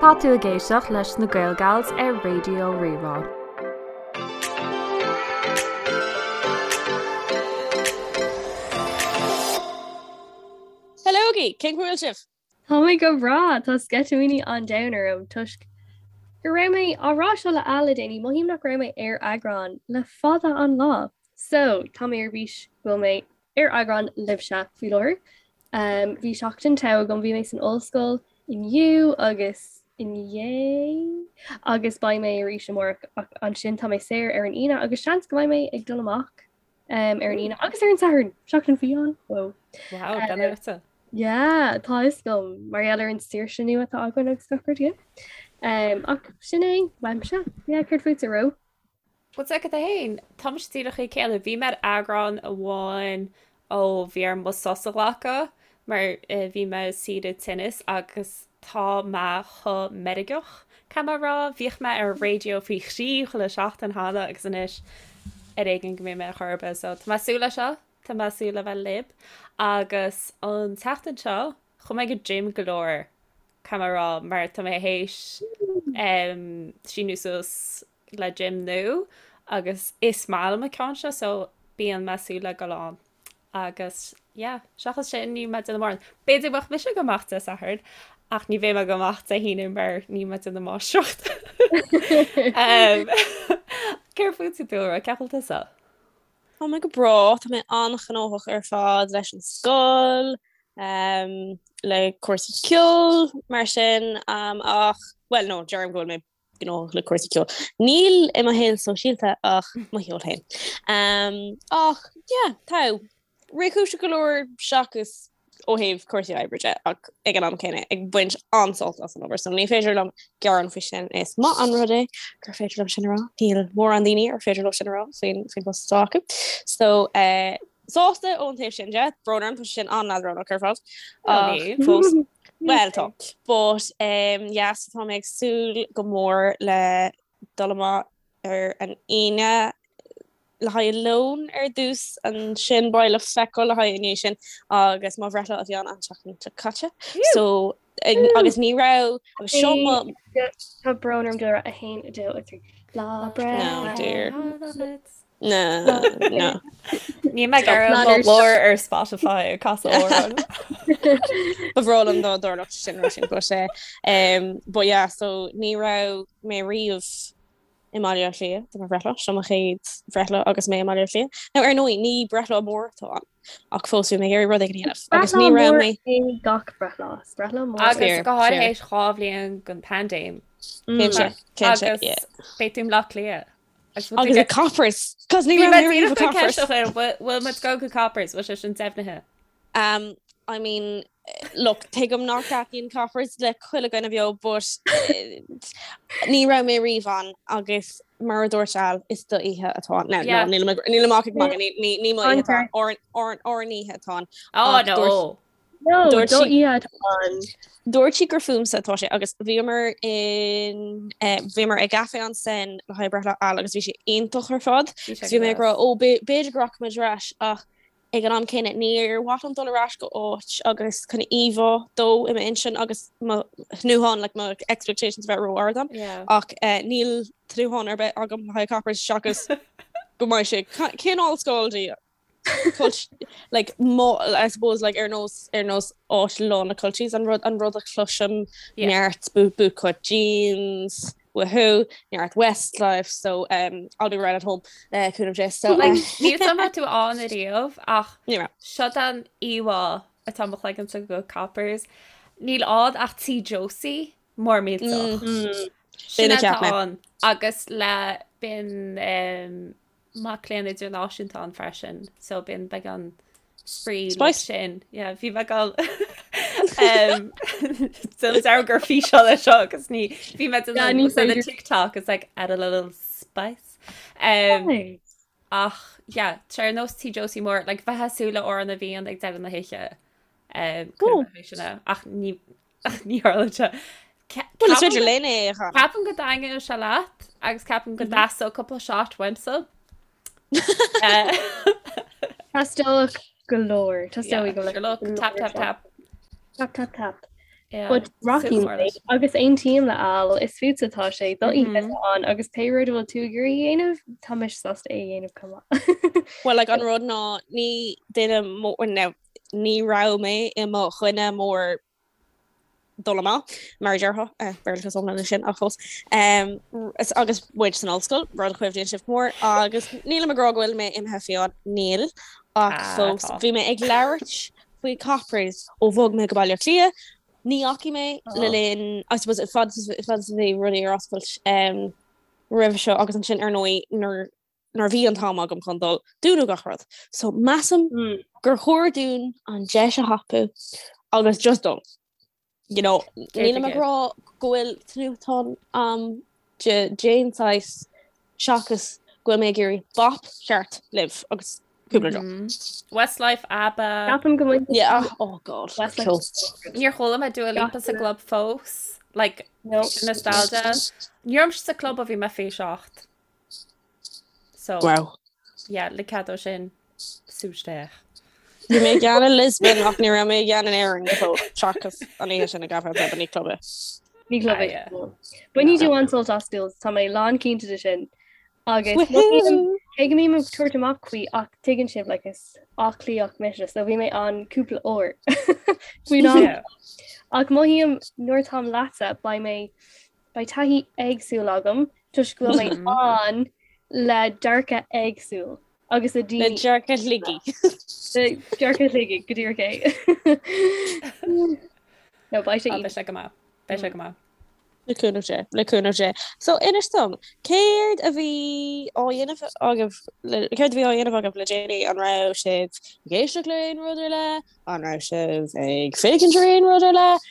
Tá tú ag éisteacht leis na Gael Gals ar Raidió Rí-Rá. Hello-gaí! Cén chaoi a bhfuil sibh? Tá mé go breá! Tá sceitimíní an domhain orm toisc go raibh mé á rá seo le Al le déanaí, mothaím nach raibh mé ar eagrán le fada an lá. So, tá mé ar bís go bhfuil mé ar eagrán libhse faoi láthair. Bhí seachtain togha agam, bhí mé san ollscoil inniu agus inné agus beidh mé arís amárach ach ansin tá mé saor ar an Aoine agus seans go mbeidh mé ag dul amach ar an Aoine agus ar an Satharn, seachtain fiáin. Wow. Wow, gan ortsa. Yeah, tá fhios agam mar gheall ar an saoirse nua atá againn agus gach rud, yeah. Ach sin é uaimse. Yeah, céard fútsa, Ró? Bhuel, tá agat féin, tá mise díreach an céanna. Bhí mé ar eagrán amháin ó bhí orm mo sos a ghlacadh mar bhí mé saoire tinnis agus tá mé chomh meirgeach, caithfidh mé a rá. Bhíodh mé ar an raidió faoi thrí chuile seachtain cheana agus anois ar éigean go mbeidh mé ar chor ar bith. So tá mé ag súil leis seo, tá mé ag súil le bheith libh agus an tseachtain seo chuaigh mé go gym go leor. Caithfidh mé a rá mar tá mé théis síniú suas le gym nua agus is maith liom an ceann seo so bíonn mé ag súil le dul ann agus yeah seachas sin níl mé ag déanamh mórán. B'fhéidir go mbeadh mise ag dul amach Dé Sathairn ach ní bheidh mé ag dul amach Dé hAoine mar níl mé ag déanamh máistreacht. Céard fútsa Dúlra, cén chaoi a bhfuil tusa? Tá mé go breá, tá mé an-ghnóthach ar fad leis an scoil, le cúrsaí ceoil mar sin ach, bhuel no, deirim go bhfuil mé gnóthach le cúrsaí ceoil. Níl i mo shaol sóisialta ach mo cheol féin. Ach yeah, tá réchúiseach go leor seachas ó thaobh cúrsaí oibre de ach ag an am céanna ag baint an-sult as an obair so ní féidir liom gearán faoi sin. Is maith an rud é gur féidir liom sin a rá. Níl mórán daoine ar féidir leo sin a rá faoin faoin bpost atá acu. So eh, sásta ón taobh sin de, brón orm, tá sé sin an-leadránach ar fad. Ach fós Well tá. But um, yeah, so tá mé ag súil go mór le dul amach ar an Aoine le haghaidh lón ar dtús, ansin beidh le feiceáil le haghaidh i ndiaidh sin agus mo bhreithlá a bhí ann an tseachtain seo caite. So agus ní raibh agus seo mo Tá brón orm Dúlra 1 2 3 Lá breithe. No dear. No, no. Níl mé ag iarraidh mo ghlór ar Spotify ag casadh amhrán. Ba bhreá liom dá dtarlódh sin sin but eh, um, but yeah, so ní raibh mé riamh i mBaile Átha Cliath do mo bhreithlá, seo mo chéad bhreithlá agus mé i mBaile Átha Cliath. Now ar ndóigh ní breithlá mór atá ann ach fós bhí mé ag iarraidh rud éigin a dhéanamh agus ní raibh mé é gach breithlá. Is breithlá mór. Agus go háirithe théis 2 bhliain den paindéim. Cinnte, cinnte, Agus yeah. beidh tú i mBleá Cliath. Agus i Coppers, cos ní raibh mé riamh i Coppers. Bhfuil muid ag dul go Coppers, bhfuil sé sin deimhnithe? Um, I mean, look, tuigim nach dtaitníonn Coppers le chuile dhuine beo, but eh, ní raibh mé riamh ann agus mar a dúirt Al, is do oíche atá ann. Now, Yeah. no, nílim ag- nílim ach ag magadh, ní, ní, ní mo oíche atá ann, ár, ár, ár n-oíche atá ann. Oh Ach no. dúirt- No, Dúirt do sí- oíche atá ann. Dúirt sí gur fúmsa atá sé agus bhíomar in eh, bhíomar i gcaife ansin le haghaidh breithlá Al agus bhí sé iontach ar fad. Bhí sé Agus bhí mé ag rá, go ó, b'fhéidir b'fhéidir go rachaimid ar ais ach Ag an am céanna, níor mhaith liom dul ar ais go áit agus chun íomhá dó i m'intinn agus mo thnúthán, like mo expectations a bheith ró-ard agam. Yeah. Ach eh, níl tnúthán ar bith agam le haghaidh Coppers seachas go mbeidh sé cineál scaldy. Cult, like, mo, I suppose, like, ar nós, ar nós áit lán le culchies, an rud, an rud a chloisim Yeah. neart boot, bootcut jeans, Woohoo, neart Westlife, so um, I'll be right at home le cúnamh Dé. So, Like, uh, níl 's a'm raibh tú ann ariamh ach ní raibh. seo an íomhá atá i mo chloigeannsa go Coppers. Níl ann ach Tí Josie mór millteach. Mm. Sin B'in a atá cheap mé. ann agus le bíonn um, mac léinn idirnáisiúnta ann freisin so bíonn beagán spraoi le Spice. sin. Yeah, bhí mé ag dul um, Déan dearmad gur físeán é seo agus ní bhí mé Yeah, ní déanamh the féidir. TikTok is like add a little spice. Um, Nice. ach yeah, tá ar nós Tí Josie mór, like bheith ag súil le Amhrán na bhFiann ag deireadh na hoíche. Um, Oh. sin é. ach ní ach ní tharlaíonn sé. Bhuel, is féidir linn é a chanadh. Ceapaim go dtaitneodh sé leat agus ceapaim go dteastódh cúpla shot uaimse. Teastódh go leor. Teastóidh go Sure look, tap tap tap. Tap tap tap. But rachaidh mé agus aontaím le Al, is fútsa atá sé, do oíche atá ann agus pé rud a bhfuil tú ag iarraidh a dhéanamh, tá mise sásta é a dhéanamh chomh maith. Well like an rud ná ní duine mór, now ní raibh mé i mo dhuine mór dul amach mar a déarfá, Béarlachas iomlán é sin ach fós, agus muid san ollscoil, rud a chuimhníonn sibh go mór, agus nílim ag rá go bhfuil mé imithe fiáin, níl, ach fós bhí mé ag labhairt faoi Coppers ó bhog mé go Baile Átha Cliath. Ní fhacaigh mé le linn, I suppose, fad is a bhí rudaí ar oscailt roimhe seo agus ansin ar ndóigh nuair nuair a bhí an t-am agam chun dul, dúnadh gach rud. So measaim gur chóir dúinn an deis a thapú agus just dul. You know, nílim ag rá go bhfuil tnúthán a'm d'aon saghas seachas go bhfuil mé ag iarraidh bap ceart libh agus cúpla deoch. Westlife, ABBA. Ceapaim go mbainfidh Yeah, oh god. Westlife. Níor chuala mé Dua Lipa sa gclub fós. Like, no. nostalgia. Ní raibh mise sa club ó bhí mé 27. So, wow. Yeah, le cead ó sin sú isteach. Bhí mé i gceann i Lisbon ach ní raibh mé i gceann in Éirinn go fóill seachas an oíche sin i gCaifé Club ní club é. Ní club é. Bainfidh tú an-sult as Jules, tá mé lán cinnte de sin. Agus cé go mbím ag tabhairt amach faoi ach tuigeann sibh like is Áth Cliathach mise so bhí mé ann cúpla uair faoin am. Ach mothaím nuair táim leatsa beidh mé Beidh taithí éagsúil agam toisc go bhfuil mé ann le dearcadh éagsúil agus le daoine. Le dearcadh Shligigh. Le dearcadh Shligigh, go díreach é. No, beidh sé. Beidh sé go maith. Beidh sé go maith. Le cúnamh Dé, le cúnamh Dé. So inis dom, céard a bhí á dhéanamh agaibh, céard a bhí á dhéanamh agaibh le déanaí? An raibh sibh ag éisteacht le aon rud ar leith? An raibh sibh ag féachaint ar aon rud ar leith?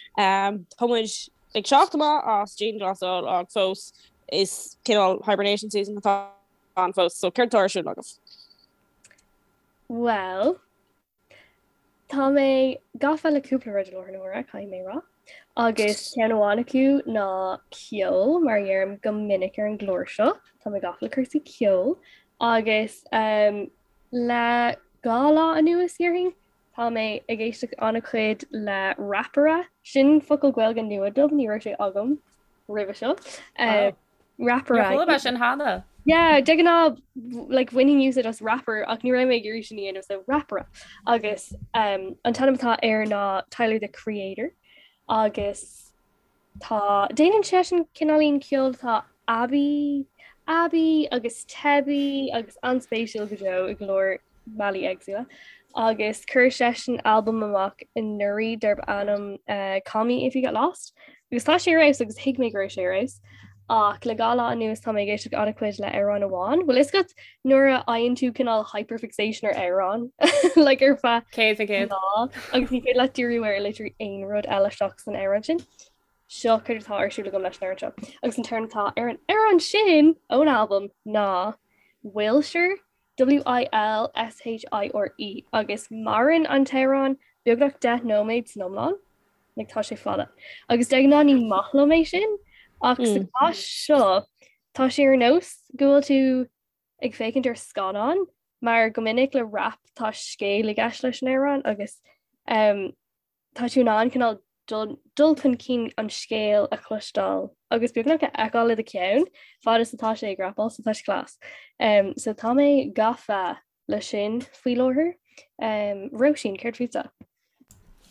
Tá muid ag teacht amach as dianghlasáil ach fós is cineál hibernation season atá ann fós, so céard atá ar siúl agaibh? Bhuel, tá mé gafa le cúpla rud i láthair na huaire, caithfidh mé rá. Agus ceann amháin acu ná ceol, mar a dheirim go minic ar an gclár seo, tá mé gafa le cúrsaí ceoil. Agus um, le gá lá anuas, déarfainn, Tá mé ag éisteacht an-chuid le rapaire, sin focal Gaeilge nua dom, ní raibh sé agam roimhe seo. Rapaire. Níor chuala mé sin cheana. Yeah, de ghnáth like bhainfinn úsáid as rapper ach ní raibh mé ag iarraidh sin a dhéanamh so rapaire. Agus um, an t-ainm atá air ná Tyler the Creator agus Tá, déanann seisean cineáilín ceoil atá aibí, aibí agus teibí agus an-spéisiúil go deo i go leor bealaí éagsúla. Agus chuir seisean albam amach anuraidh darb ainm Call Me If You Get Lost. Agus tá sé ar fheabhas agus thuig mé go raibh sé ar fheabhas. Ach le gá lá anuas tá mé ag éisteacht an-chuid le amhrán amháin. Bhfuil fhios agat nuair a fhaigheann tú cineál hyperfixation ar amhrán like ar feadh 100%. lá agus ní féidir leat díriú ar literally aon rud eile seachas an amhrán sin. Seo céard atá ar siúl agam leis an amhrán seo. Agus an t-amhrán atá ar an amhrán sin ón albam ná Wilshire, W-I-L-S-H-I-R-E, agus maireann an t-amhrán beagnach 10 nóiméad san iomlán. Like tá sé fada. Agus de ghnáth ní maith liom é sin ach sa chás seo tá sé ar nós go bhfuil tú ag féachaint ar scannán mar go minic le rap tá scéal i gceist leis an amhrán agus um, tá tú in ann cineál dul, dul chun cinn an scéal a chloisteáil agus beagnach a fheiceáil i do cheann fad is atá sé ag rapáil so tá sé class. Um, so tá mé gafa le sin faoi láthair. Um, Róisín, céard fútsa?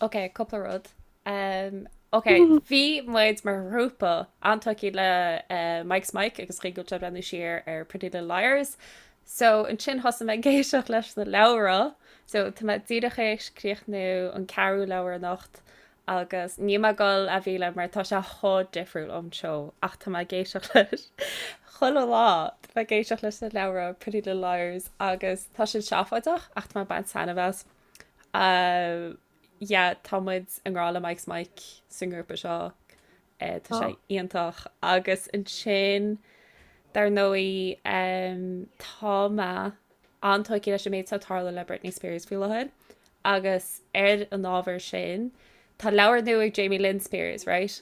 Ok, cúpla rud. Um, ok, bhí muid mar ghrúpa an-tógtha le uh, Mike's Mic agus chuig go breathnú siar ar Pretty Little Liars. So ansin thosaigh mé ag éisteacht leis na leabhra, so tá mé díreach théis críochnú an ceathrú leabhar anocht agus níl mé ag dul a mhilleadh mar tá sé chomh difriúil ón seó ach tá mé ag éisteacht leis chuile lá tá mé ag éisteacht leis na leabhra Pretty Little Liars agus tá siad seafóideach ach tá mé ag baint taitneamh as. Uh, yeah, tá muid i ngrá le Mike's Mic sa ngrúpa seo. Uh, tá sé iontach agus ansin dar ndóigh um, tá mé an-tógtha leis an méid atá ag tarlú le Britney Spears faoi láthair agus ar an ábhar sin tá leabhar nua ag Jamie Lynn Spears, right?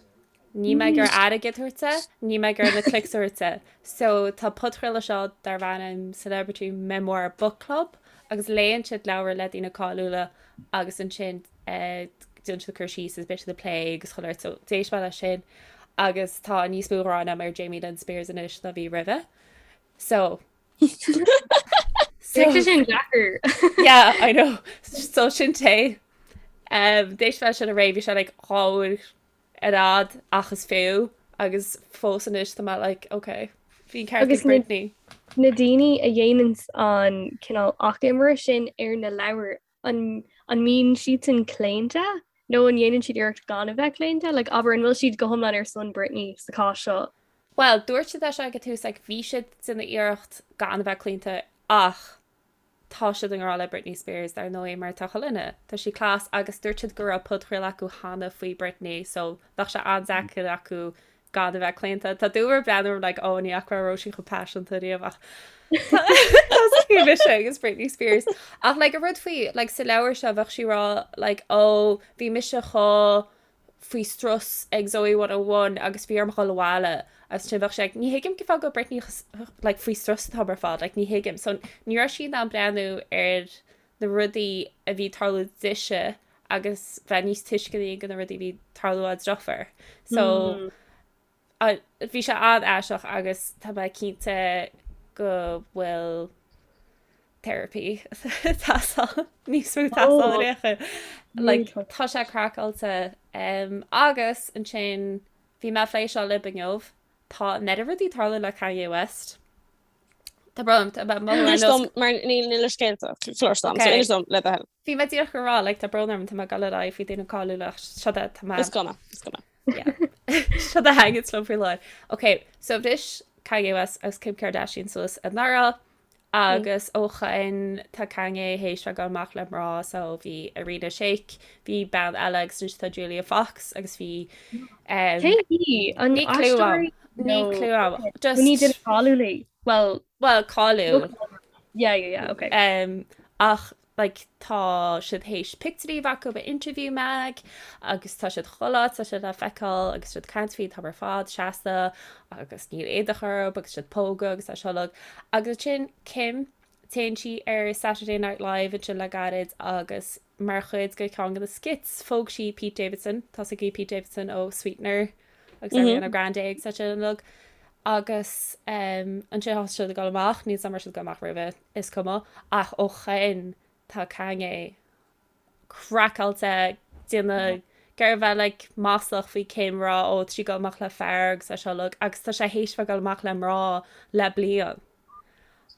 Níl mé ag iarraidh airgead a thabhairt di, níl mé ag iarraidh na clicks a thabhairt di. So tá podchraoladh seo darb ainm Celebrity Memoir Book Club agus léann siad leabhair le daoine cáiliúla agus ansin eh, déanann siad cur síos agus beidh siad ag plé agus chuile shórt so d'éist mé leis sin agus tá níos mó gráin agam ar Jamie Lynn Spears anois ná bhí roimhe. So So sin deacair. Yeah, I know. So sin té. Um, d'éist mé sin aréir bhí sé like 2 uair ar fhad ach is fiú agus fós anois tá mé like ok bhí an ceart ag Britney. Na daoine a dhéananns an cineál achoimre sin ar na leabhair an an mbíonn siadsan claonta nó an ndéanann siad iarracht gan a bheith claonta? Like abair an bhfuil siad go hiomlán ar son Britney sa chás seo? Bhuel, dúirt siad é seo ag an tús like bhí siad ag déanamh iarracht gan a bheith claonta ach tá siad i ngrá le Britney Spears dar ndóigh mar tá chuile dhuine, tá sí class agus dúirt siad go raibh podchraoladh acu cheana faoi Britney so bheadh sé an-deacair acu gan a bheith claonta. Tá dúmhar ag breathnú orm like oh ní fhaca mé Róisín chomh paiseanta riamh ach tá mise agus Britney Spears. Ach like an rud faoi like sa leabhar seo bheadh sí ag rá like oh bhí mise chomh faoi strus ag Zoey 101 agus bhí orm dhul abhaile agus ansin bheadh sé like ní thuigim cén fáth go bhfuil Britney like faoi strus an t-am ar fad like ní thuigim. So ní raibh sí in ann breathnú ar na rudaí a bhí ag tarlú dise agus bheith níos tuisceanaí go na rudaí a bhí ag tarlú dá deirfiúr. So bhí sé an-aisteach agus tá mé cinnte go bhfuil therapy ag teastáil níos mó ag teastáil ar aon chaoi. Like tá sé craiceáilte um, agus ansin bhí mé ag plé seo libh inniu tá an oiread rudaí ag tarlú le Kanye West. Tá brón orm, tá mé mothú ar Inis nós dom mar níl níl a scéalta cloiste agam, so Okay. inis dom le do thoil. Bhí mé díreach ag rá like tá brón orm tá mé ag dul ar aghaidh faoi daoine cáiliúla ach seo é tá mé Is cuma, is cuma. Yeah. Seo a thaitníonn liom faoi láthair. Ok, so bhris Kanye West agus Kim Kardashian suas anuraidh agus ó shin tá Kanye théis bheith ag dul amach le mná so bhí Irina Shayk, bhí bean eile agus anois tá Julia Fox agus bhí um, Cé hí? An Níl clue aisteoir agam. Níl nó clue agam. Just ní duine cáiliúil í? Well, well cáiliúil. yeah, yeah, yeah, okay. Um, ach like tá siad théis pictiúirí a bheith acu in Interview Mag agus tá siad chuile áit, tá siad le feiceáil agus siad ag caint faoi an t-am ar fad seasta agus níl éadach orthu agus siad ag pógadh agus tá seo uilig. Agus ansin Kim, téann sí ar Saturday Night Live ansin le gairid agus mar chuid de cheann de na skits phóg sí Pete Davidson, tá 's agaibh Pete Davidson ó Sweetener agus Ariana Grande agus é sin uilig. Agus um, ansin tá siad ag dul amach, níl 's agam an raibh siad ag dul amach roimhe. Is cuma, ach ó shin tá Kanye craiceáilte, déanamh ag iarraidh bheith like maslach faoi Kim rá ó tá sí ag dul amach le fear agus é seo uilig agus tá sé théis bheith ag dul amach le mná le bliain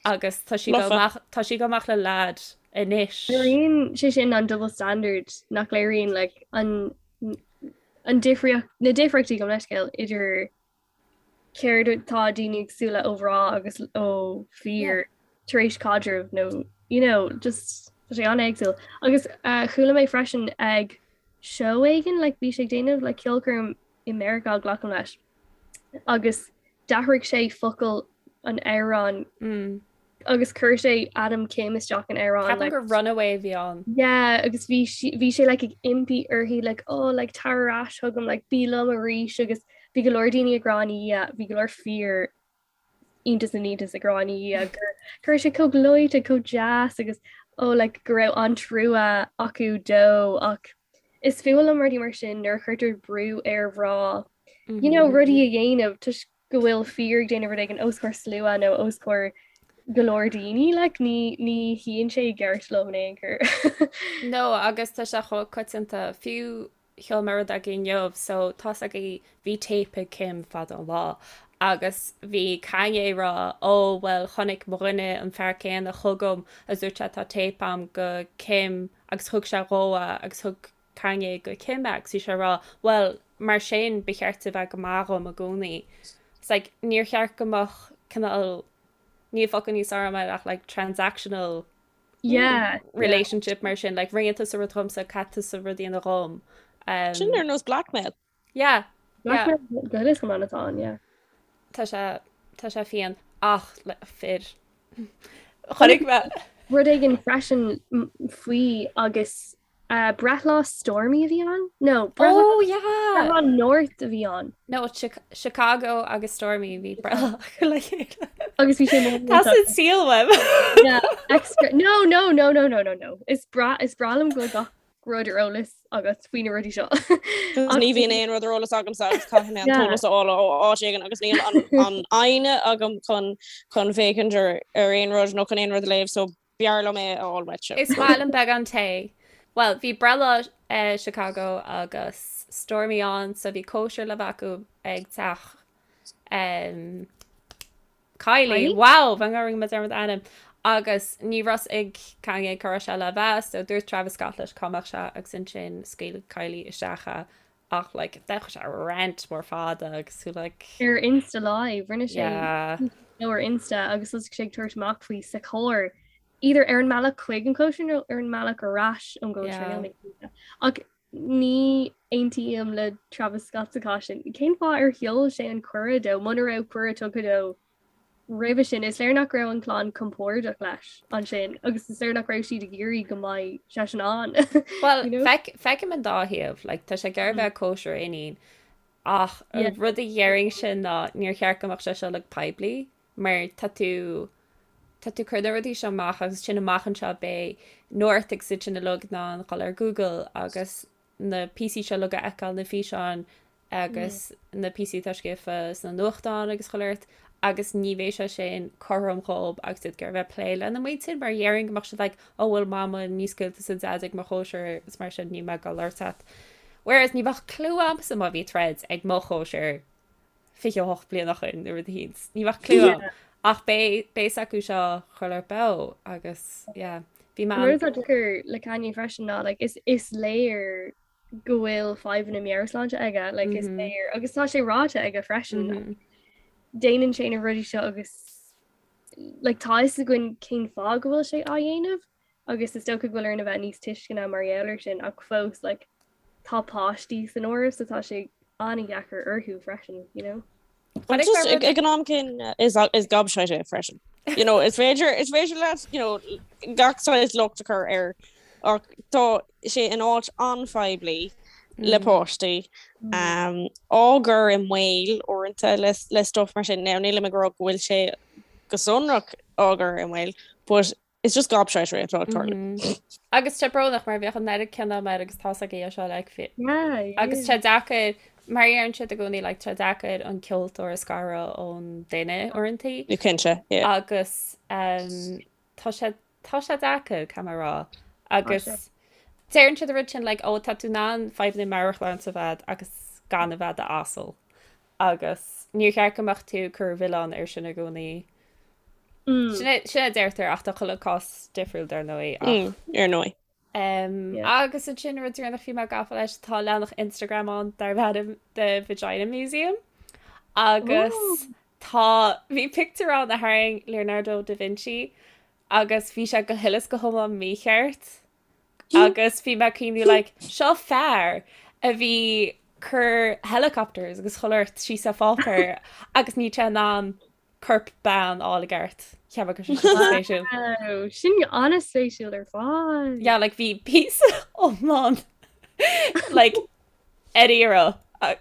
agus tá sí ag dul Lofa. amach tá sí ag dul amach le lad anois. Léiríonn sé sin an double standard nach léiríonn like an an difríocht na difríochtaí gabh mo leithscéal idir céard atá daoine ag súil le ó mhná agus ó fir tar éis caidreamh nó you know just tá sé an-éagsúil. Agus uh, chuala mé freisin ag seó éigin like bhí sé ag déanamh like ceolchoirm i Meiriceá glacaim leis agus d'athraigh sé focal an amhráin Mm. agus chuir sé ainm Kim isteach in amhrán Ceapaim like gur Runaway a bhí ann. yeah agus bhí sí bhí sé like ag impí uirthi like oh like tar ar ais chugam like bí liom arís agus bhí go leor daoine ag rá ina dhiaidh bhí go leor fir iontas na n-iontas ag rá ina dhiaidh gur go raibh sé chomh gleoite chomh deas agus oh like go raibh an-trua acu dó ach is fuath liom rudaí mar sin nuair a chuirtear brú ar mhná you know rudaí a dhéanamh toisc go bhfuil fir ag déanamh rud éigin os comhair slua nó os comhair go leor daoine, like, ní, ní shuíonn sé i gceart liom in aon chor. No, agus tá sé chomh coitianta, fiú sheol mé rud agaibh inniu, so tá's agaibh bhí téip ag Kim fada an lá, agus bhí Kanye ag rá, ó bhuel chonaic mo dhuine an fear céanna chugam agus dúirt sé tá téip a'm go Kim agus thug sé dhó é agus thug Kanye go Kim é agus bhí sé ag rá, bhuel, mar sin ba cheart di bheith go maith dhom i gcónaí. It's like, níor cheart go mbeadh cineál, níl focal níos fearr agam air ach like transactional Yeah, yeah. relationship mar sin, like rinne tusa rud dhomsa, caithfidh tusa rud a dhéanamh dhom. Um, Sin ar nós blackmail. yeah, yeah. Blackmail go is go man atá ann, yeah. Tá sé, tá sé fiáin ach le fir. Chonaic mé. Rud éigin freisin faoi agus Breithlá Stormi a bhí ann? No, breithlá Oh yeah! breithlá North a bhí ann. No, Chicago agus Stormi bhí breithlá acu le chéile. Agus bhí sé mór Tá san saol uaim. Yeah, extra. No, no, no, no, no, no, no. Is breá is breá liom go bhfuil gach. rud ar eolas agat faoi na rudaí seo. Ní bhíonn aon rud ar eolas agamsa agus caithfidh mé an t-eolas a fháil ó áit éigin agus níl an fhoighne agam chun chun féachaint ar ar aon rud nó chun aon rud a léamh so b'fhearr liom é a fháil uaitse. Is maith liom beagán tae. Bhuel, bhí breithlá Chicago agus Stormi ann so bhí cóisir le bheith acu ag teach Kylie, wow, bheinn rinne mé dearmad ainm. Agus ní raibh fhios ag Kanye cá raibh sé le bheith, so dúirt Travis Scott leis cá mbeadh sé agus ansin scaoil Kylie isteach é ach like d'fhéach sé rant mór fada agus tú like. Ar Insta Live, rinne sé yeah. nó ar Insta agus thosaigh sé ag tabhairt amach faoi sa charr either ar an mbealach chuig an cóisir nó ar an mbealach ar ais ón gcóisir yeah. Ach Ní aontaím le Travis Scott sa chás sin. Cén fáth ar sheol sé an cuireadh dó muna raibh cuireadh tugtha dó roimhe sin? Is léir nach raibh an chlann compordach leis ansin agus is léir nach raibh siad ag iarraidh go mbeidh seisean ann. Bhuel, feicim an dá thaobh. Like, tá sé ag iarraidh bheith ag cóisir a iníon ach an rud a déarfainnse ná níor cheart go mbeadh sé seo like poiblí. mar tá tú tá tú cur na rudaí seo amach agus sin amach anseo beidh North agus iad sin uilig in ann dhul ar Google agus na píosaí seo uilig a fheiceáil, na físeáin agus na píosaí atá scríofa sna nuachtáin agus chuile shórt agus ní bheidh sé sin cothrom dhób agus iad ag iarraidh bheith ag plé lena muintir mar dhéarfainn go mbeadh siad like oh bhuel mama ní scaoil tusa Daid ag mo chóisir is mar sin níl mé ag dul labhairt leat. Whereas ní bheadh clue agamsa má bhí troid ag mo chóisir 28 bliain ó shin nó rud eicínt. Ní bheadh clue agam. Ach beidh fhios acu seo chuile shórt beo agus yeah. Bhí mé An rud atá deacair le Kanye freisin ná like, is, is léir go bhfuil fadhbanna meabhairshláinte aige like, is mm -hmm. léir agus tá sé ráite aige freisin. Mm -hmm. Déanann sé na rudaí seo agus like, tá fhios againn cén fáth go bhfuil sé á dhéanamh agus is dócha go bhfuil orainn a bheith níos tuisceana mar gheall air sin ach fós like, tá páistí san áireamh so tá sé an-dheacair orthu freisin, you know. Just ag an am céanna is is gobshite é freisin. You know, is féidir is féidir leat you know, gach saghas locht a chur air ach tá sé in áit an-phoiblí le mm. páistí um, á gcur i mbaol uaireanta le, le stuff mar sin. Now nílim ag rá go bhfuil sé go sonrach á gcur i mbaol, but It's just gobshitery atá ag tarlú. Agus tá brónach mar bheadh an oiread cion agam air agus tá's agaibh seo like fi- Agus tá deacair mar a deireann siad i gcónaí like tá deacair an ceoltóir a scaradh ón duine uaireanta. Cinnte, yeah. Agus um, tá sé tá sé deacair caithfidh mé a rá. Agus deireann siad an rud sin like ó tá tú in ann fadhbanna meabhairshláinte a bheith agus gan a bheith i d'asal. Agus níor cheart go mbeadh tú ag cur an mhilleáin air sin i gcónaí. Sin é sin a deirtear ach tá chuile cás difriúil dar ndóigh ach. Ar ndóigh. Agus ansin rud deireanach bhí mé gafa leis tá leathanach Instagram ann darb ainm The Vagina Museum agus tá bhí pictiúr ann a tharraing Leonardo da Vinci agus bhí sé go huile is go hiomlán mícheart. Agus bhí mé ag cuimhniú like, seo fear a bhí cur helicopters agus chuile shórt síos ar pháipéar agus níl sé in ann corp bean a fháil i gceart. Cheap mé go raibh sé sin spéisiúil. Wow, sin an-spéisiúil ar fad. Yeah, like bhí píosa iomlán like ar iarraidh. Ach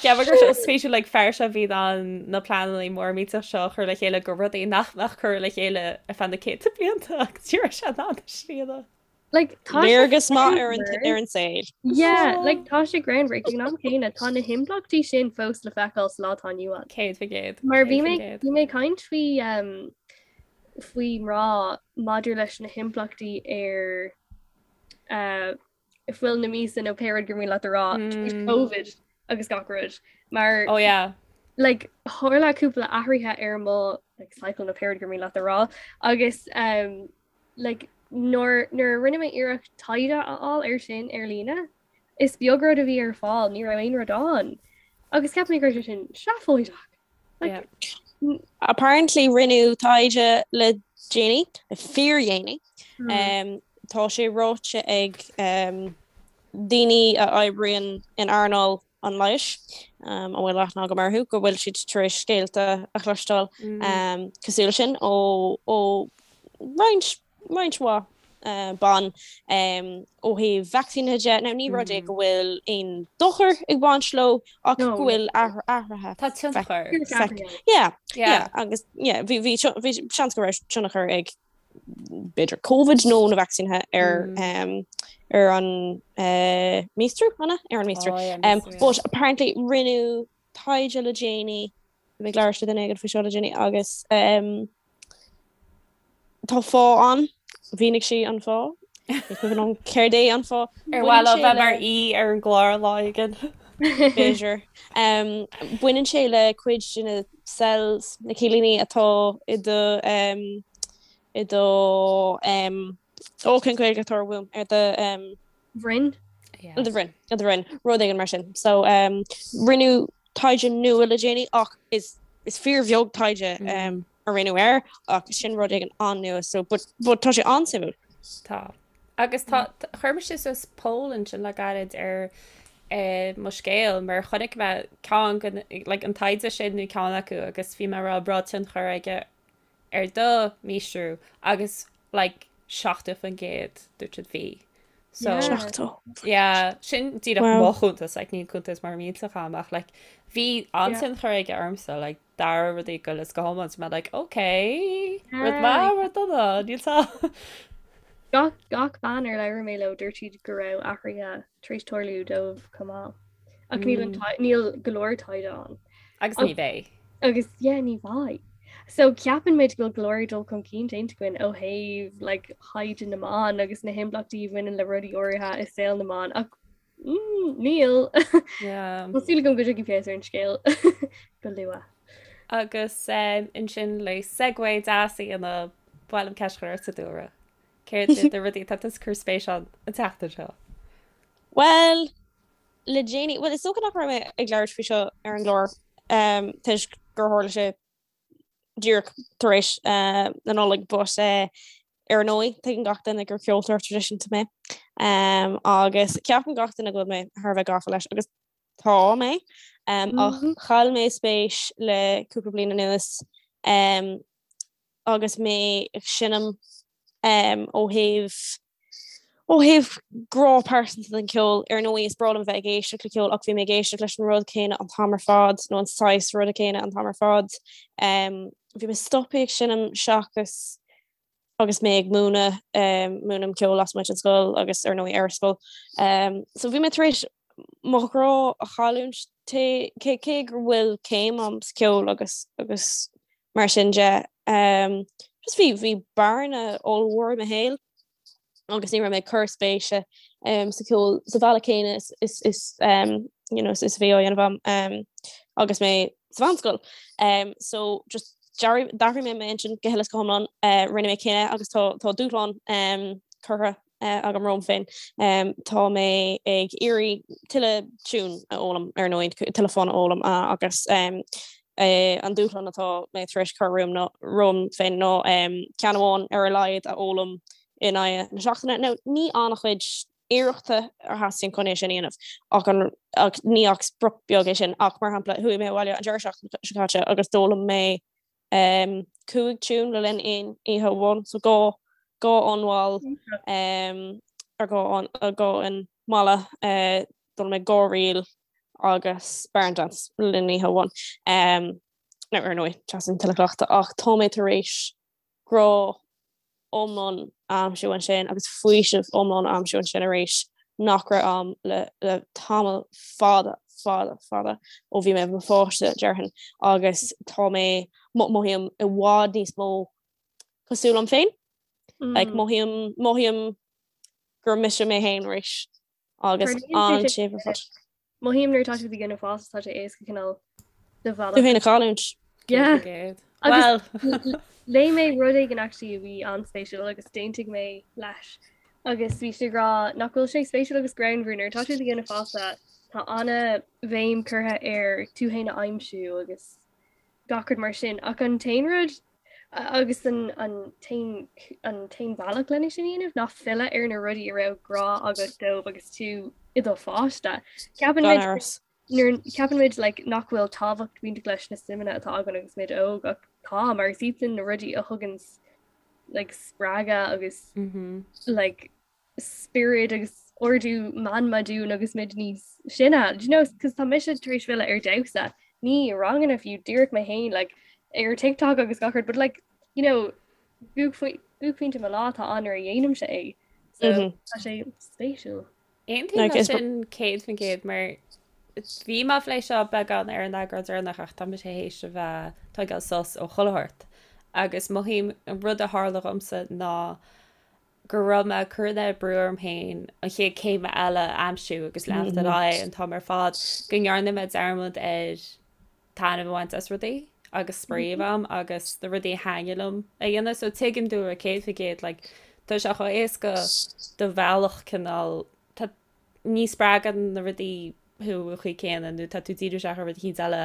cheap mé go raibh sé spéisiúil like fear seo bhí in ann na pleananna mór millteach seo a chur le chéile go rudaí nach mbeadh curtha le chéile ar feadh na céadta blianta agus ní raibh sé in ann a shrianadh. Like, tá sé Léargas maith ar an ar an saol. Yeah, like tá sé greannmhar ag an am céanna tá na himpleachtaí sin fós le feiceáil sa lá atá inniu ann. 100%. Mar bhí mé bhí mé ag caint faoi um, faoi mná maidir leis na himpleachtaí ar uh, fuil na míosa nó pé rud gur mian leat a rá tar éis Covid agus gach rud mar Oh yeah. like tharla cúpla athruithe ar mo like, cycle nó pé rud gur mian leat a rá agus um, like, nuair nuair a rinne mé iarracht taighde a fháil ar sin ar líne is beag rud a bhí ar fáil ní raibh aon rud ann agus cheap mé go raibh sé sin seafóideach. Like, yeah. Apparently rinneadh taighde le déanaí, le fíordhéanaí. Mm. Um, tá sé ráite ag um, daoine a oibríonn in earnáil an leighis, um, a bhfuil aithne agam orthu, go bhfuil siad tar éis scéalta a chloisteáil mm. um, cosúil leis sin ó, ó roinnt roinnt mhaith ban ó thaobh vacsaínithe de. Now ní rud é go bhfuil aon dochar ag baint leo ach go bhfuil athruithe. Tá tionchar. Yeah, yeah, agus yeah, bhí bhí seans go raibh tionchar ag. b'fhéidir Covid nó na vacsaínithe ar ar an míostrú, an ea? Ar an míostrú. But apparently rinneadh taighde le déanaí, bhí mé ag labhairt le duine éigin faoi seo le déanaí agus tá fáth ann, mhínigh sí an fáth, ní cuimhin liom céard é an fáth. Ar mhaith leo bheith mar aoi ar an gclár lá éigin? B'fhéidir. Baineann sé le cuid de na cells, na cillíní atá i do i do ó cén Ghaeilge atá uaim ar do bhroinn? I do bhroinn, i do bhroinn, rud éigin mar sin. So rinneadh taighde nua le déanaí ach is is fíorbheag taighde a rinneadh air ach sin rud éigin an-nua so but but tá sé an-suimiúil. Tá. Agus tá chuir mise suas poll ansin le gairid ar mo scéal mar chonaic mé ceann like an taighde sin nó ceann acu agus bhí mé ag rá an raibh tionchar aige ar do mhíostrú agus like 70% dúirt siad bhí. So Yeah. yeah, sin díreach Wow. mo chuntas, like, níl cuntas mar millteach agam ach like, bhí an-tionchar aige ormsa, like, d'athraigh rudaí go uile is go hiomlán, so mé like, okay, rud maith, rud dona, níl tá. Gach gach bean ar labhair mé leo dúirt siad go raibh athruithe tar éis tarlú dóibh chomh maith. Ach níl an mm. níl go leor taighde ann. Agus ní bheidh. Agus yeah, ní bheidh. So ceapann muid go bhfuil go leor dul chun cinn déanta againn ó thaobh like, thaighde na mban agus na himpleachtaí a bhaineann le rudaí áirithe i saol na mban ach mm, níl. Yeah. Tá súil agam go dtiocfaidh feabhas ar an scéal go luath. Agus um, ansin le segue deas a dhéanamh ba mhaith liom ceist a chur ortsa Dúlra. Céard iad na rudaí atá tú ag cur spéis ann an tseachtain seo? Well, le déanaí, bhuel is dócha nach raibh mé ag labhairt faoi seo ar an gclár toisc gur tharla sé díreach tar éis na Nollag but ar ndóigh tuigeann gach duine gur ceoltóir traidisiúnta mé agus ceapann gach duine go bhfuil mé thar a bheith gafa leis agus tá mé ach chaill mé spéis le cúpla bliain anuas agus mé ag seinm ó thaobh Ó thaobh grá pearsanta don cheol, ar ndóigh is breá liom bheith ag éisteacht le ceol ach bhí mé ag éisteacht leis an rud céanna an t-am ar fad nó an saghas ruda céanna an t-am ar fad. Bhí mé stoptha ag seinm seachas agus mé ag múineadh, múinim ceol lasmuigh den scoil agus ar ndóigh ar scoil. So bhí mé tar éis mo ghrá a chailliúint cé cé go bhfuil céim agam sa cheol agus agus mar sin de. Just bhí bhí bearna ollmhór i mo shaol agus ní raibh mé ag cur spéise sa cheol sa bhealach céanna is is is you know is is a bhí á dhéanamh agam agus mé sa mheánscoil. So just d'athraigh mé m'intinn go huile is go hiomlán, rinne mé cinneadh agus tá tá dúshlán curtha agam romham féin. Tá mé ag iarraidh tuilleadh tiún a fhoghlaim ar ndóigh, tuilleadh fonn a fhoghlaim agus an dúshlán atá mé tar éis cur romham féin ná ceann amháin ar a laghad a fhoghlaim in aghaidh na seachtaine. Now ní an-chuid iarrachta a theastaíonn chun é sin a dhéanamh ach an ach ní ach sprioc beag é sin ach mar shampla chuaigh mé abhaile an deireadh seachtaine seo caite agus d'fhoghlaim mé 5 tiún le linn aon oíche amháin, so 2 2 fhonn mhall ar 2 fhonn 2 fhonn malla, d'fhoghlaim mé 2 ríl agus Barn Dance le linn oíche amháin. Now ar ndóigh, teastaíonn tuilleadh cleachtaidh ach tá mé tar éis grá iomlán a aimsiú ansin agus faoiseamh iomlán a aimsiú ansin arís nach raibh a'm le le tamall fada fada fada ó bhí mé i mo pháiste déarfainn agus tá mé mothaím i bhfad níos mó cosúil liom féin like mothaím mothaím gur mise mé féin arís agus an-séimh ar fad. Mothaím nuair atá tú ag déanamh fásta tá sé éasca cineál do bhealach. Tú féin a chailliúint. Yeah. Agus léigh mé rud éigin actually a bhí an-spéisiúil agus d'aontaigh mé leis agus bhí sé ag rá nach bhfuil sé spéisiúil agus greannmhar nuair atá tú ag déanamh fásta tá an-bhéim curtha ar tú féin a aimsiú agus gach rud mar sin ach an t-aon rud Agus an t-aon bhealach lena sin a dhéanamh ná filleadh ar na rudaí a raibh grá agat dóibh agus tú i do pháiste. Ceapann muid nuair ceapann muid like, nach bhfuil tábhacht bainteach leis na suimeanna atá againn agus muid óg ach tá mar is iad sin na rudaí a thugann like, spreagadh agus mm -hmm. like, spiorad agus ardú meanma dúinn agus muid níos sine. Do you know, cos tá mise tar éis filleadh ar damhsa, ní ranganna fiú, díreach mé féin, like, ar TikTok agus gach rud, but like, you know, buaicphointe buaicphointe mo lá atá ann nuair a dhéanaimse é. So tá sé spéisiúil. Aontaím leis sin 100% mar bhí mé ag plé seo beagán ar an eagrán deireanach ach tá mise théis a bheith ag tógáil sos ó chuile shórt agus mothaím an rud a tharla dhomsa ná go raibh mé ag cur an oiread brú orm féin an chéad céim eile a aimsiú agus leanacht ar aghaidh an t-am ar fad go ndearna mé dearmad ar taitneamh a bhaint as rudaí agus spraoi a bheith a'm agus na rudaí a thaitníonn liom a dhéanamh. So tuigim duit 100% like tá sé chomh éasca do bhealach cineál tá ní spreagann na rudaí thú an chaoi céanna nó tá tú díriú isteach ar rud eicínt eile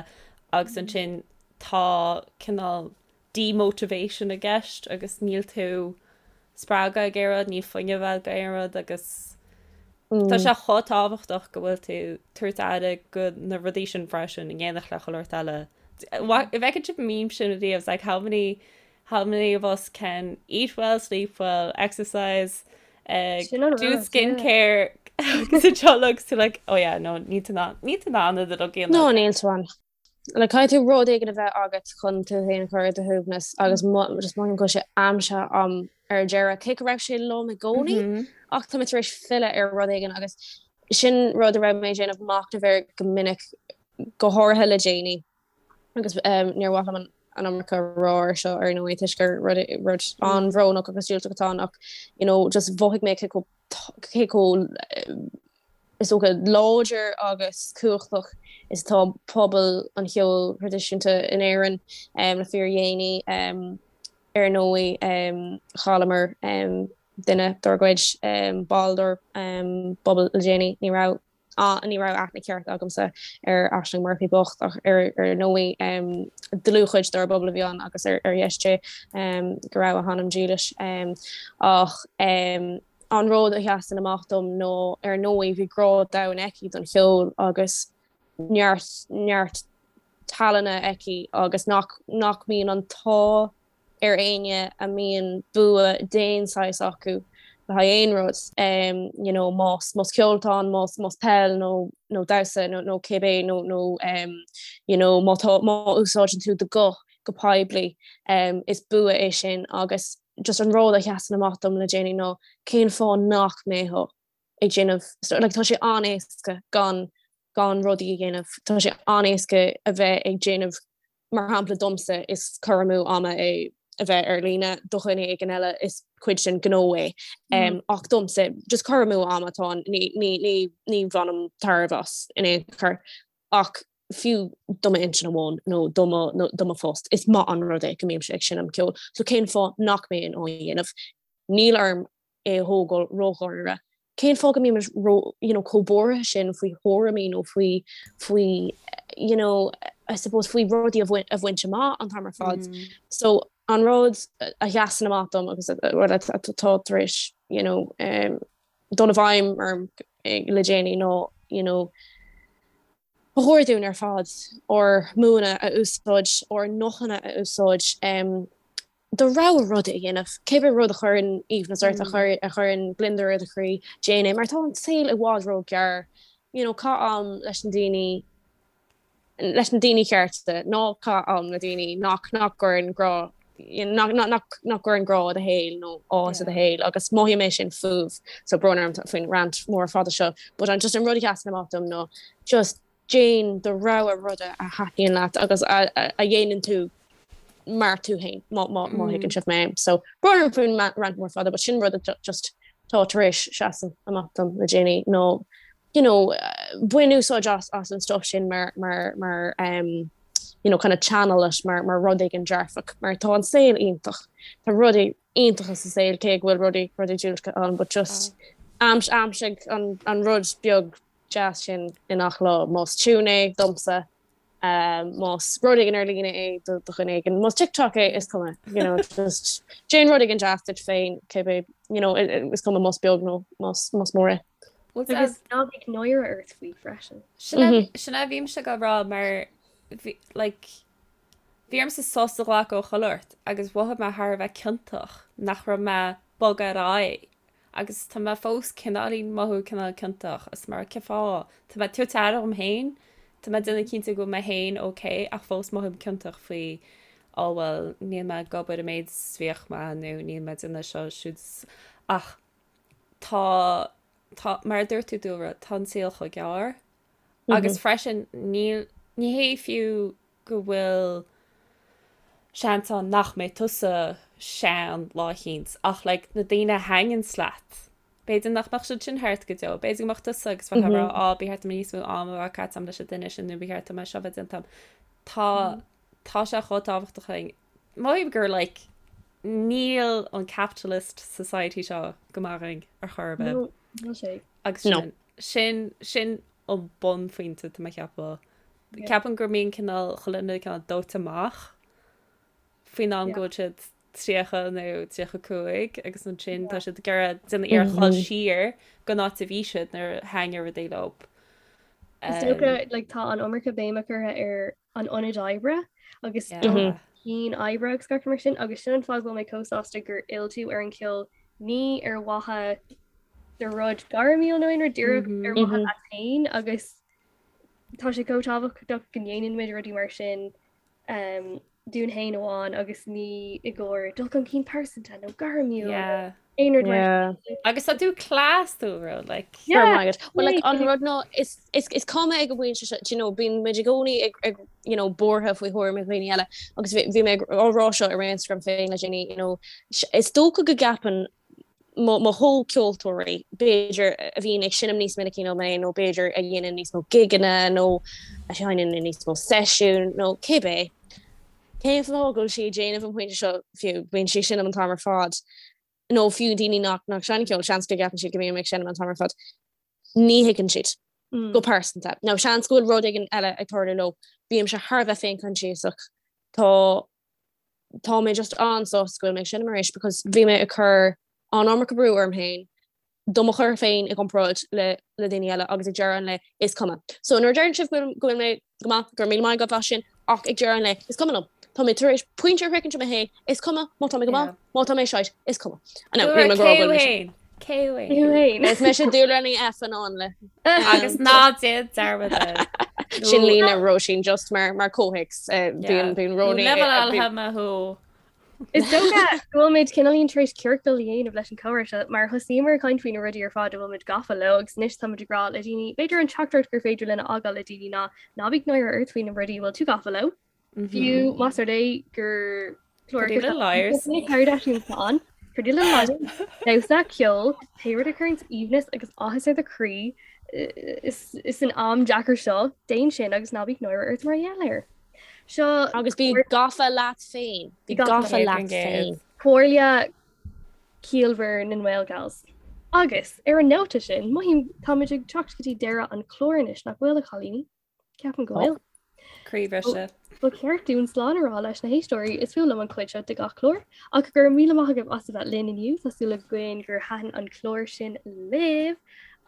agus ansin tá cineál demotivation i gceist agus níl tú spreagtha ag aon rud, níl fuinneamh agat do aon rud agus tá sé chomh tábhachtach go bhfuil tú tabhairt aire go na rudaí sin freisin in éineacht le chuile shórt eile. An bhfeiceann sibh an meme sin ariamh, it's like how many how many of us can eat well, sleep well, exercise, uh, Sin an do rud, yeah. skincare agus anseo agus tú like oh yeah no níl tú in ann níl tú in ann iad a dhéanamh. No, níl tú in ann. Like, caithfidh tú rud éigin a bheith agat chun tú féin a chur ar do shuaimhneas agus just mothaím go bhfuil sé aimsithe a'm ar deireadh, cé go raibh sé liom i gcónaí ach tá mé tar éis filleadh ar rud éigin agus sin rud a raibh mé ag déanamh machnaimh air go minic, go háirithe le déanaí agus níor mhaith liom an iomarca a rá ar seo ar ndóigh toisc gur rud rud an-bhrónach agus diúltach atá ann ach you know just mhothaigh mé cé chomh cé chomh is dócha, láidir agus cumhachtach is atá pobal an cheoil thraidisiúnta in Éirinn le fíordhéanaí. Ar ndóigh, chailleamar duine dár gcuid, ball dár bpobal le déanaí. Ní raibh ní raibh aithne ceart agamsa ar Aisling Murphy bocht ach ar ndóigh dlúthchuid dár bpobal a bhí ann agus ar dheis Dé go raibh a hanam dílis. Ach An rud a sheasann amach dom ná, ar ndóigh, bhí grá domhain aici don cheol agus neart, neart tallainne aici agus nach, nach mbíonn an t-ádh ar éinne a mbíonn bua d'aon saghas acu le haghaidh aon rud, you know, más, más ceol atá ann, más, más peil nó, nó damhsa nó, nó cibé nó, nó you know, má tá, má úsáideann tú do ghuth go poiblí, is bua é sin agus just an rud a sheasann amach dom le déanaí ná cén fáth nach mbeifeá ag déanamh, like tá sé an-éasca gan gan rudaí a dhéanamh, tá sé an-éasca a bheith ag déanamh, mar shampla domsa is cur amú ama é a bheith ar líne, do dhuine éigin eile is cuid den ghnó é um, ach domsa just cur amú ama atá ann, ní, ní, ní, ní bhainim tairbhe as in aon chor ach fiú do m'intinn amháin nó do mo nó do mo phost, is maith an rud é go mbímse ag seinm ceoil. So cén fáth nach mbeinn á dhéanamh? Níl orm é a thógáil ródháiríre. Cén fáth go mbímid ró you know chomh buartha sin faoi thuairimí nó faoi faoi you know I suppose faoi rudaí a bhaint a bhaint amach an t-am ar fad. So an rud a sheasann amach dom agus rud atá tar éis you know um, dul i bhfeidhm orm le déanaí ná you know Ba chóir dúinn ar fad ár mbuanna a úsáid, ár nguthanna a úsáid do rogha ruda a dhéanamh. Cibé rud a chuireann aoibhneas ort, a chuireann gliondar ar do chroí, déan é, mar tá an saol i bhfad ró-ghearr. You know, caith am leis na daoine, leis na daoine cearta, ná caith am le daoine nach nach gcuireann grá, nach nach nach gcuireann grá i do shaol nó áthas i do shaol agus mothaím é sin fúibh. So brón orm faoin rant mór fada seo, but an just an rud a sheasann amach dom ná just déan do rogha ruda a thaitníonn leat agus a a dhéanann tú mar tú féin má má má thuigeann sibh mé. So brón orm faoin rant mór fada, but sin rud a just tá tar éis seasamh amach dom le déanaí nó you know, bain úsáid as as an stuff sin mar mar mar um, you know, kind of channel it mar mar rud éigin dearfach, mar tá an saol iontach. Tá rudaí iontacha sa saol cé go bhfuil rudaí rudaí diúltacha ann, but just aims aimsigh an an rud beag deas sin i ngach lá. Más tune é domsa, um, más rud éigin ar líne é do do dhuine éigin, más TikTok é is cuma, you know, just déan rud éigin deas duit féin, cibé, you know, is cuma más beag nó más más mór é. Agus ná bíodh náire ort faoi freisin. Sin a bhímse ag rá mar like, bhí ormsa sos a ghlacadh ó chuile shórt agus mhothaigh mé thar a bheith ciontach nach raibh mé bogtha ar aghaidh agus tá mé fós cineáilín mothú cineál ciontach is mar cén fáth tá mé ag tabhairt aire dhom féin tá mé ag déanamh cinnte go bhfuil mé féin ok ach fós mothaím ciontach faoi. Ó bhuel, níl mé ag obair an méid is bhíodh mé nó níl mé ag déanamh seo siúd ach tá, tá, mar a dúirt tú Dúlra, tá an saol chomh gearr agus freisin níl, ní hé fiú go bhfuil seans ann nach mbeidh tusa sean lá eicínt ach like na daoine a thaitníonns leat, b'fhéidir nach mbeadh siad sin thart go deo, b'fhéidir go mbeadh tusa agus bheifeá ag rá á ba cheart dom níos mó ama a bheith caite agam leis an duine sin nó ba cheart dom é seo a bheith déanta agam. Tá tá sé chomh tábhachtach againn. Mothaím gur like níl an capitalist society seo go maith againn ar chor ar bith. No, níl sé. Agus sin, sin, sin an bunphointe tá mé ag ceapadh. Ceapaim go mbíonn cineál chuile dhuine cineál dóite amach faoin am go bhfuil siad 30 nó 35 agus ansin tá siad ag iarraidh déanamh iarracht dul siar go an áit a bhí siad nuair a thaitnigh rudaí leo. Is dócha like, tá an iomarca béime curtha ar an ionad oibre agus cinn oibre agus gach mar sin agus sin an fáth go bhfuil mé chomh sásta gur fhill tú ar an cheol ní ar mhaithe do rud gairmiúil nó aon rud díreach ar mhaithe leat féin agus tá sé chomh tábhachtach go ndéanann muid rudaí mar sin um, dúinn féin amháin agus ní i gcomhair dul chun cinn pearsanta nó gairmiúil Yeah. aon rud mar Yeah. sin. Agus tá tú class tú ro like. Yeah. Right. Well, like, an rud ná is, is, is cuma ag an bpointe seo, do you know, bíonn muid i gcónaí ag, ag you know, buartha faoi thuairim dhaoine eile agus bhí, bhí mé ag á rá seo ar Instagram féin le déanaí, you know, is dócha go gceapann mo, mo chomhcheoltóirí, b'fhéidir, a bhíonn ag seinm níos minicí ná mé nó b'fhéidir a dhéanann níos mó gigeanna nó a sheinneann i níos mó seisiún nó cibé, cén fáth go bhfuil sí ag déanamh an pointe seo fiú, bíonn sí ag seinm an t-am ar fad, nó fiú daoine nach, nach seinneann ceol, seans go gceapann siad go mbím ag seinm an t-am ar fad. Ní thuigeann siad. Go pearsanta. Nó seans go bhfuil rud éigin eile ag tarlú leo. Bímse thar a bheith féinchoinsiasach. Tá tá mé just an-sásta go bhfuil mé ag seinm arís because bhí mé ag cur an iomarca brú orm féin do mo chur féin i gcomparáid le le daoine eile agus ag deireadh an lae is cuma. So nuair a deireann sibh go bhfuil go bhfuil mé go maith, go raibh míle maith agaibh as sin ach ag deireadh an lae is cuma liom. Tá mé tar éis pointe a shroichint i mo shaol, is cuma má tá mé go maith, má tá mé shite, is cuma. Now, níl mé ag rá go bhfuil mise. Cé Cé Is mise Dúlra Ní F an Áinle. Agus ná déan dearmad air. Sin líne Róisín just mar mar comhthéacs bíonn bíonn Róní. Level me thú. Is dócha go bhfuil muid cineáilín tar éis ciorcal a dhéanamh leis an chomhrá seo mar thosaíomar ag caint faoi na rudaí ar fad a bhfuil muid gafa leo agus anois táimid ag rá le daoine b'fhéidir an teachtaireacht gur féidir linn a fhágáil le daoine ná ná bíodh náire ort faoi na rudaí a bhfuil tú gafa leo. Fiú más rud é gur Pretty Little Liars. Kardashians atá ann. Pretty Little Liars, damhsa, ceol, pé rud a chuireanns aoibhneas agus áthas ar do chroí is san am deacair seo, déan sin agus ná bíodh náire ort mar gheall air. Seo Agus bí gafa leat féin. Bí gafa leat féin. Comhairle ciallmhar na nGaelgals. Agus ar an nóta sin, mothaím táimid ag teacht go dtí deireadh an chláir anois, nach bhfuil, a chailíní? Ceapaim go bhfuil. Croíbhriseadh. Ba cheart dúinn slán a rá leis na héisteoirí, is fuath liom an chuid seo de gach clár, ach go raibh míle maith agaibh as a bheith linn inniu, tá súil againn gur thaitin an clár sin libh.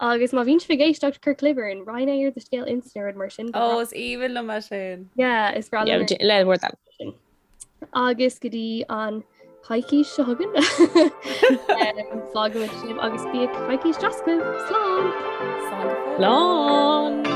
Agus má bhíonn sibh ag éisteacht, cuir clib orainn, roinn é ar do scéal Insta nó rud mar sin. Ó, is aoibhinn liom é sin. Yeah, is breá liom. Le bhur dtoil. Agus go dtí an coicís seo chugainn fágfaimid sibh agus bíodh coicís deas agaibh. Slán! Slán!